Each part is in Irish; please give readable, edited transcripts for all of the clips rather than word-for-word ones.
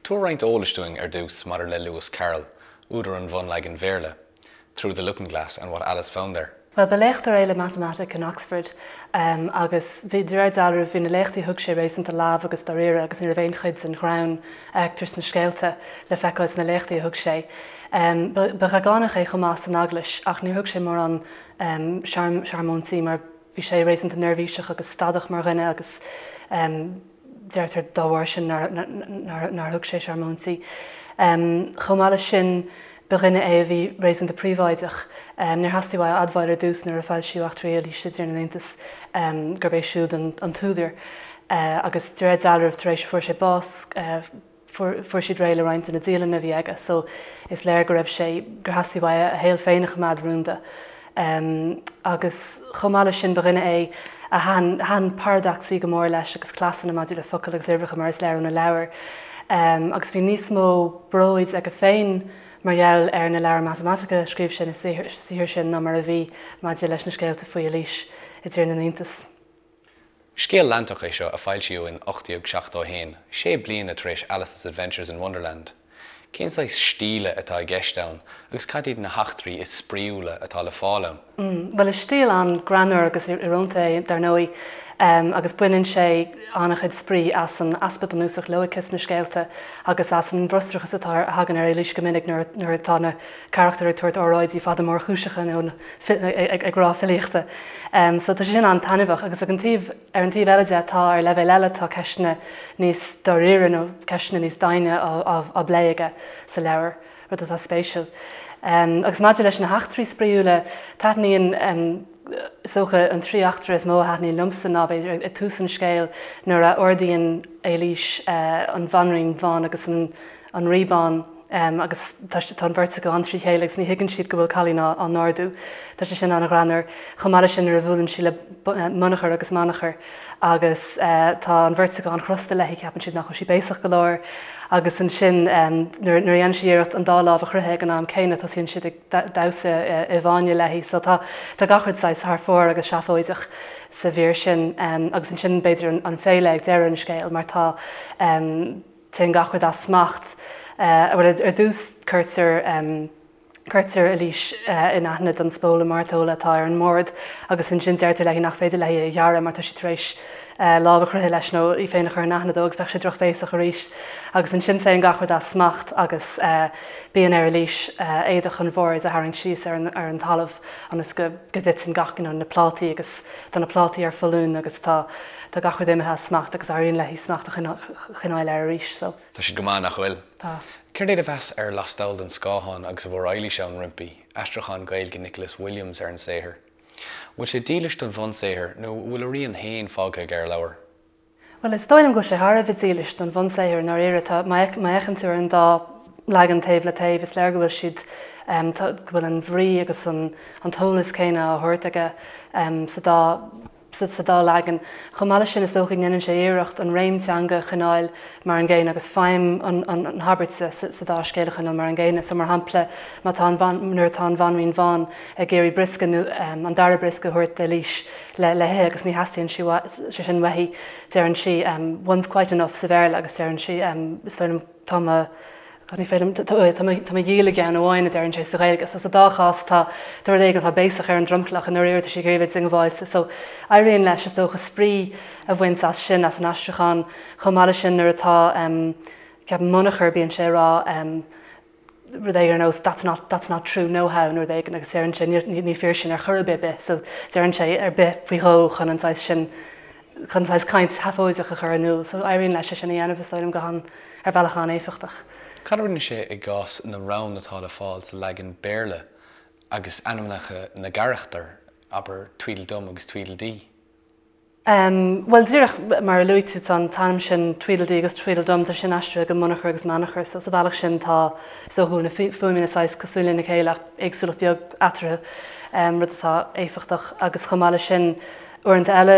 Tabhair roinnt eolais dúinn ar dtús maidir le Lewis Carroll, údar an bhunleagain Bhéarla, Through the Looking Glass and What Alice Found There. Bhuel, ba léachtóir é le matamaitic in Oxford agus bhí, de réir dealraimh, bhí na léachtaí a thug sé réasúnta leamh agus dáiríre agus ní raibh aon chuid den ghreann a fheictear sna scéalta le feiceáil sna léachtaí a thug sé. Ba dheagánach é chomh maith san eaglais ach níor thug sé mórán searmóintí mar bhí sé réasúnta neirbhíseach agus stadach mar dhuine agus deirtear dá bharr sin nár thug sé searmóintí. Chomh maith leis sin, ba dhuine é a bhí réasúnta príobháideach. Níor theastaigh uaidh a admháil ar dtús nuair a foilsíodh Eachtraí Eilíse i dTír na nIontas gurb é siúd an t-údar agus de réir dealraimh tar éis a fuair sé bás, Fuair siad réidh le roinnt de na dialanna a bhí aige so is léir go raibh sé, gur theastaigh uaidh a shaol féin a choimeád rúnda. Agus chomh maith leis sin ba dhuine é a thaitin, thaitin paradacsaí go mór leis agus cleasanna maidir le focail agus uimhreacha mar is léir óna leabhair. Agus bhí níos mó bróid aige féin mar gheall ar na leabhair matamaitice a scríobh sé na saothair sin ná mar a bhí maidir leis na scéalta faoi Eilís i dTír na nIontas. Scéal leantach é seo a foilsíodh in 1871, sé bliana tar éis Alice's Adventures in Wonderland. Cén saghas stíle atá i gceist ann agus cad iad na heachtraí is spraíúla atá le fáil ann? Bhuel, is stíl an-ghreannmhar agus íorónta é, dar ndóigh, agus baineann sé an-chuid spraoi as an easpa bunúsach loighce sna scéalta agus as an bhfrustrachas atá a thagann ar Eilís go minic nuair atá na carachtair ag tabhairt óráidí fada mórchúiseacha nó ag rá filíochta. So tá sé sin an-taitneamhach agus ag an taobh, ar an taobh eile de tá, ar leibhéal eile tá ceisteanna níos dáiríre nó ceisteanna níos doimhne á bplé aige sa leabhar, rud atá spéisiúil. Agus maidir leis na heachtraí spraíúla, taitníonn, is dócha an trí eachtra is mó a thaitníonn liomsa ná b'fhéidir ag tús an scéil nuair a ardaíonn Eilís an Bhanríon Bhán agus an Rí Bán, agus tá an bheirt acu an-trí chéile agus ní thuigeann siad go bhfuil cailín á n-ardú. Tá sé sin an-ghreannmhar. Chomh maith leis sin nuair a bhuaileann sí le Munachar agus Manachar agus tá an bheirt acu an-chrosta léi, ceapann siad nach bhfuil sí béasach go leor agus ansin nuair a dhéanann sí iarracht an dá lámh a chroitheadh ag an am céanna tosaíonn siad ag damhsa i bhfáinne léi. So tá gach rud saghas thar fóir agus seafóideach sa mhír sin agus ansin b'fhéidir an féile ag deireadh an scéil mar tá Téann gach rud as smacht. Bhuel, ar dtús cuirtear, cuirtear Eilís in aithne don spóla mairteola atá ar an mbord agus ansin deirtear léi nach féidir léi é a ghearradh mar tá sí tar éis lámh a chroitheadh leis nó í féin a chur in aithne dó agus bheadh sé drochbhéasach arís. Agus ansin téann gach rud as smacht agus bíonn ar Eilís éadach an bhoird a tharraingt síos ar an, ar an talamh ionas go, go dtiteann gach, you know, na plátaí agus tá na plátaí ar foluain agus tá, Tá gach rud imithe as smacht agus éiríonn léi smacht a choinneáil air arís so. Tá siad go maith, nach bhfuil? Tá. Céard é do mheas ar Lastall den Scáthán agus a bhfuair Eilís ann roimpi, aistriúchán Gaeilge Nicholas Williams ar an saothar? Bhfuil sé dílis don bhunsaothar nó an bhfuil a rian féin fágtha aige ar an leabhar? Bhuel, is dóigh liom go bhfuil sé thar a bheith dílis don bhunsaothar i ndáiríre. Tá, má fhéachann tú ar an dá leagan taobh le taobh, is léir go bhfuil siad, go bhfuil an bhrí agus an t-eolas céanna á thabhairt aige sa dá sa dá leagan. Chomh maith leis sin, is dócha go ndéanann sé iarracht an réim teanga a choinneáil mar an gcéanna agus feidhm an habairt sa dá scéal a choinneáil mar an gcéanna. So, mar shampla, má tá an nuair atá an Bhanríon Bhán ag iarraidh briosca nó an dara briosca a thabhairt d'Eilís le le hithe agus ní theastaíonn sé sin uaithi, deireann sí one's quite enough sa Bhéarla agus deireann sí is dóigh liom tá mo Ní féidir liom, tá mo dhíol i gceann amháin, a deireann sé sa Ghaeilge. So sa dá chás tá rud éigin atá béasach ar an dromchlach, i ndáiríre tá sí ag iarraidh a bheith diongbháilte. So éiríonn leis, is dócha, spraoi a bhaint as sin, as an aistriúchán. Chomh maith leis sin nuair atá, ceapaim, Munachar, bíonn sé ag rá rud éigin ar nós that's not, that's not true no how nó rud éigin agus deireann sé ní fíor sin ar chor ar bith bith. So deireann sé ar bith faoi dhó chun an saghas sin, chun saghas caint sheafóideach a chur in iúl. So éiríonn leis é sin a dhéanamh, is dóigh liom, go han, ar bhealach an-éifeachtach. Cad a rinne sé i gcás na rann atá le fáil sa leagan Béarla agus ainmneacha na gcarachtar, abair Tweedledum agus Tweedledee? Bhuel, díreach mar a luaigh tú, tá an t-ainm sin Tweedledee agus Tweedledum, tá sin aistrithe go Munachar agus Manachar, so sa bhealach sin tá, is dócha go bhfuil na fuaimeanna saghas cosúil lena chéile ach éagsúlacht bheag eatarthu, rud atá éifeachtach. Agus chomh maith leis sin, Uaireanta eile,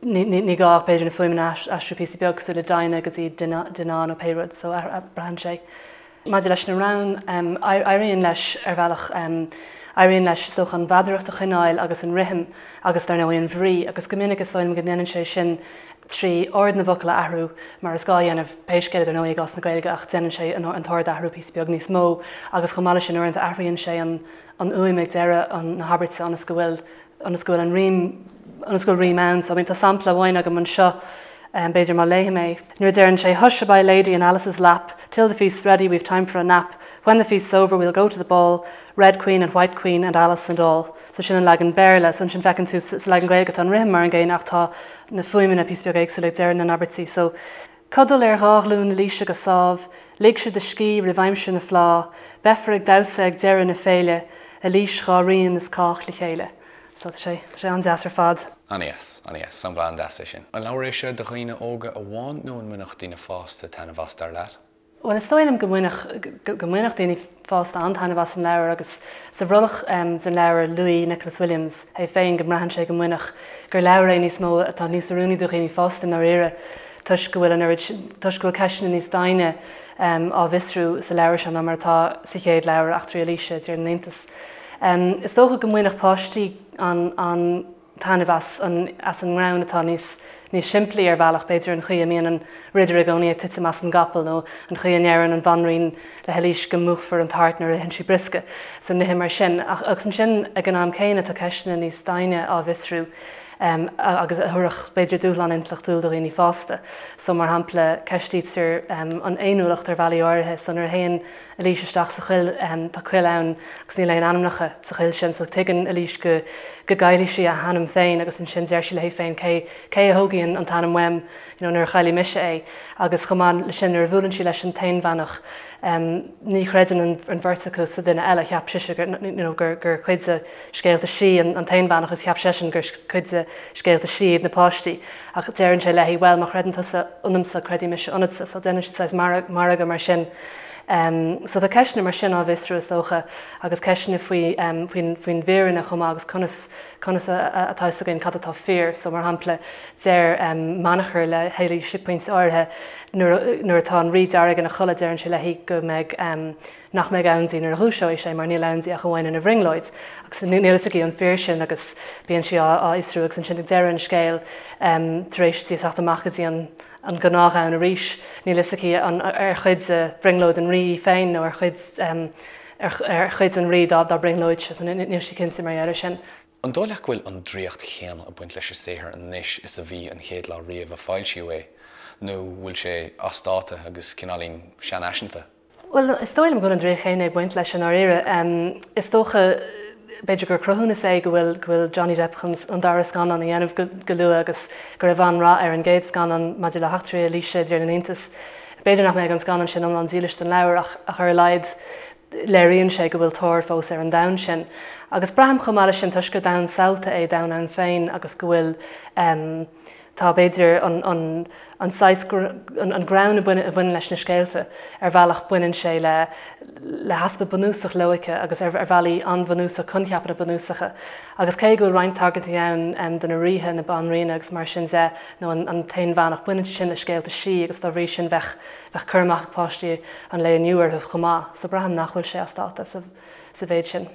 ní gá ach b'fhéidir na fuaimeanna a aistriú píosa beag, cosúil le Dinah go dtí Dinah nó pé rud, so braitheann sé. Maidir leis na rainn, éiríonn leis ar bhealach, éiríonn leis is dócha an mheadaracht a choinneáil agus an rithim agus dar ndóigh an bhrí agus go minic is dóigh liom go ndéanann sé sin. trí ord na bhfocal a athrú, mar is gá a dhéanamh pé scéal é dar ndóigh i gcás na Gaeilge ach déanann sé an t-ord a athrú píosa beag níos mó agus chomh maith leis sin uaireanta athraíonn sé an fhuaim ag deireadh na habairte ionas go bhfuil ionas go bhfuil an rím ionas go bhfuil rím ann. So I mean tá sampla amháin agam anseo b'fhéidir má léifidh mé. Nuair a deireann sé Hush-a-bye lady in Alice's lap, till the feast's ready we've time for a nap, when the feast's over we'll go to the ball, Red Queen and White Queen and Alice and all. So sin an leagan Béarla. So ansin feiceann tú sa leagan Gaeilge tá an rithim mar an gcéanna ach tá na fuaimeanna píosa beag éagsúil ag deireadh na n-abairtí. So. Codail ar dhá ghlúin Eilíse go sámh, ligse do scíth roimh aimsir na fleá, beifear ag damhsa ag deireadh na féile, Eilís dhá rian is cách le chéile. So tá sé, tá sé an-deas ar fad. An-deas, an-deas. Sampla an-deas é sin. An leabhar é seo do dhaoine óga amháin nó an mbainfeadh daoine fásta taitneamh as, dar leat? Bhuel, is dóigh liom go mbainfeadh, go mbainfeadh daoine fásta an-taitneamh as an leabhar agus sa bhrollach den leabhar luaigh Nicholas Williams é féin go mbraitheann sé go mbainfeadh, gur leabhar é níos mó atá níos oiriúnaí do dhaoine fásta i ndáiríre toisc go bhfuil an oiread, toisc go bhfuil ceisteanna níos doimhne á bhfiosrú sa leabhar seo ná mar atá sa chéad leabhar, Eachtraí Eilíse i dTír na nIontas. Is dócha go mbainfeadh páistí an, an. taitneamh as an as an ngreann atá níos níos simplí ar bhealach, b'fhéidir an chaoi a mbíonn an ridire i gcónaí ag titim as an gcapall nó an chaoi a ndeireann an bhanríon le hEilís go múchfar an tart nuair a itheann sí briosca, so nithe mar sin. Ach agus ansin ag an am céanna tá ceisteanna níos doimhne á bhfiosrú agus a thabharfadh b'fhéidir dúshlán intleachtúil do dhaoine fásta. So mar shampla ceistítear an fhéiniúlacht ar bhealaí áirithe, so nuair a théann Eilís isteach sa choill. Tá coill ann agus níl aon ainmneacha sa choill sin so tuigeann Eilís go go gcaillfidh sí a hainm féin agus ansin deir sí léi féin cé cé a thógfaidh an t-ainm uaim you know nuair a chaillfidh mise é agus chomh maith le sin nuair a bhuaileann sí leis an t-aonbheannach ní chreideann an an bheirt acu sa duine eile. Cheap sise gur you know gur gur cuid de scéalta sí an an t-aonbheannach agus cheap seisean gur cuid de scéalta sí iad na páistí ach deireann sé léi bhuel má chreideann tusa ionamsa creidfidh mise ionatsa so déanann siad saghas margadh mar sin. So tá ceisteanna mar sin á bhfiosrú is dócha agus ceisteanna faoi faoin faoin bhfírinne chomh maith agus conas conas atá fhios againn cad atá fíor. So mar shampla deir Manachar le hÉilís ag pointe áirithe nuair nuair atá an Rí Dearg ina chodladh deireann sé léi go mbeidh nach mbeidh ann di nuair a dhúiseoidh sé mar níl ann di ach amháin ina bhrionglóid agus níl fhios aici an fíor sin agus bíonn sí á fhiosrú agus ansin ag deireadh an scéil tar éis di teacht amach go dtí an an gnáthdhomhan arís níl fhios aici an ar chuid de bhrionglóid an rí í féin nó ar chuid ar chuid an rí dá dá brionglóidse so níl sí cinnte mar gheall air sin. An dóigh leat go bhfuil an draíocht chéanna ag baint leis an saothar anois is a bhí an chéad lá riamh a foilsíodh é, nó bhfuil sé as dáta agus cineáilín seanfhaiseanta? Bhuel, is dóigh liom go bhfuil an draíocht chéanna ag baint leis i ndáiríre. Is dócha, b'fhéidir gur cruthúnas é go bhfuil go bhfuil Johnny Depp chun an dara scannán a dhéanamh go go luath agus go raibh an-rath ar an gcéad scannán maidir le heachtraí Eilíse i dTír na nIontas. B'fhéidir nach mbeidh an scannán sin iomlán dílis don leabhar ach ach ar a laghad léiríonn sé go bhfuil tóir fós ar an domhan sin. Agus braithim chomh maith leis sin toisc gur domhan samhalta é domhan ann féin agus go bhfuil tá b'fhéidir an an an saghas an greann a bhaineann leis na scéalta ar bhealach baineann sé le le heaspa bunúsach loighce agus ar ar bhealaí an-bhunúsach coincheapanna bunúsacha agus cé go bhfuil roinnt tagairtí ann do na ríthe na banríona agus mar sin de nó an an t-aonbheannach baineann sé sin le scéalta sí agus dá bhrí sin bheadh bheadh cur amach ag páistí an lae inniu orthu chomh maith so braithim nach bhfuil sé as dáta sa sa mhéid sin.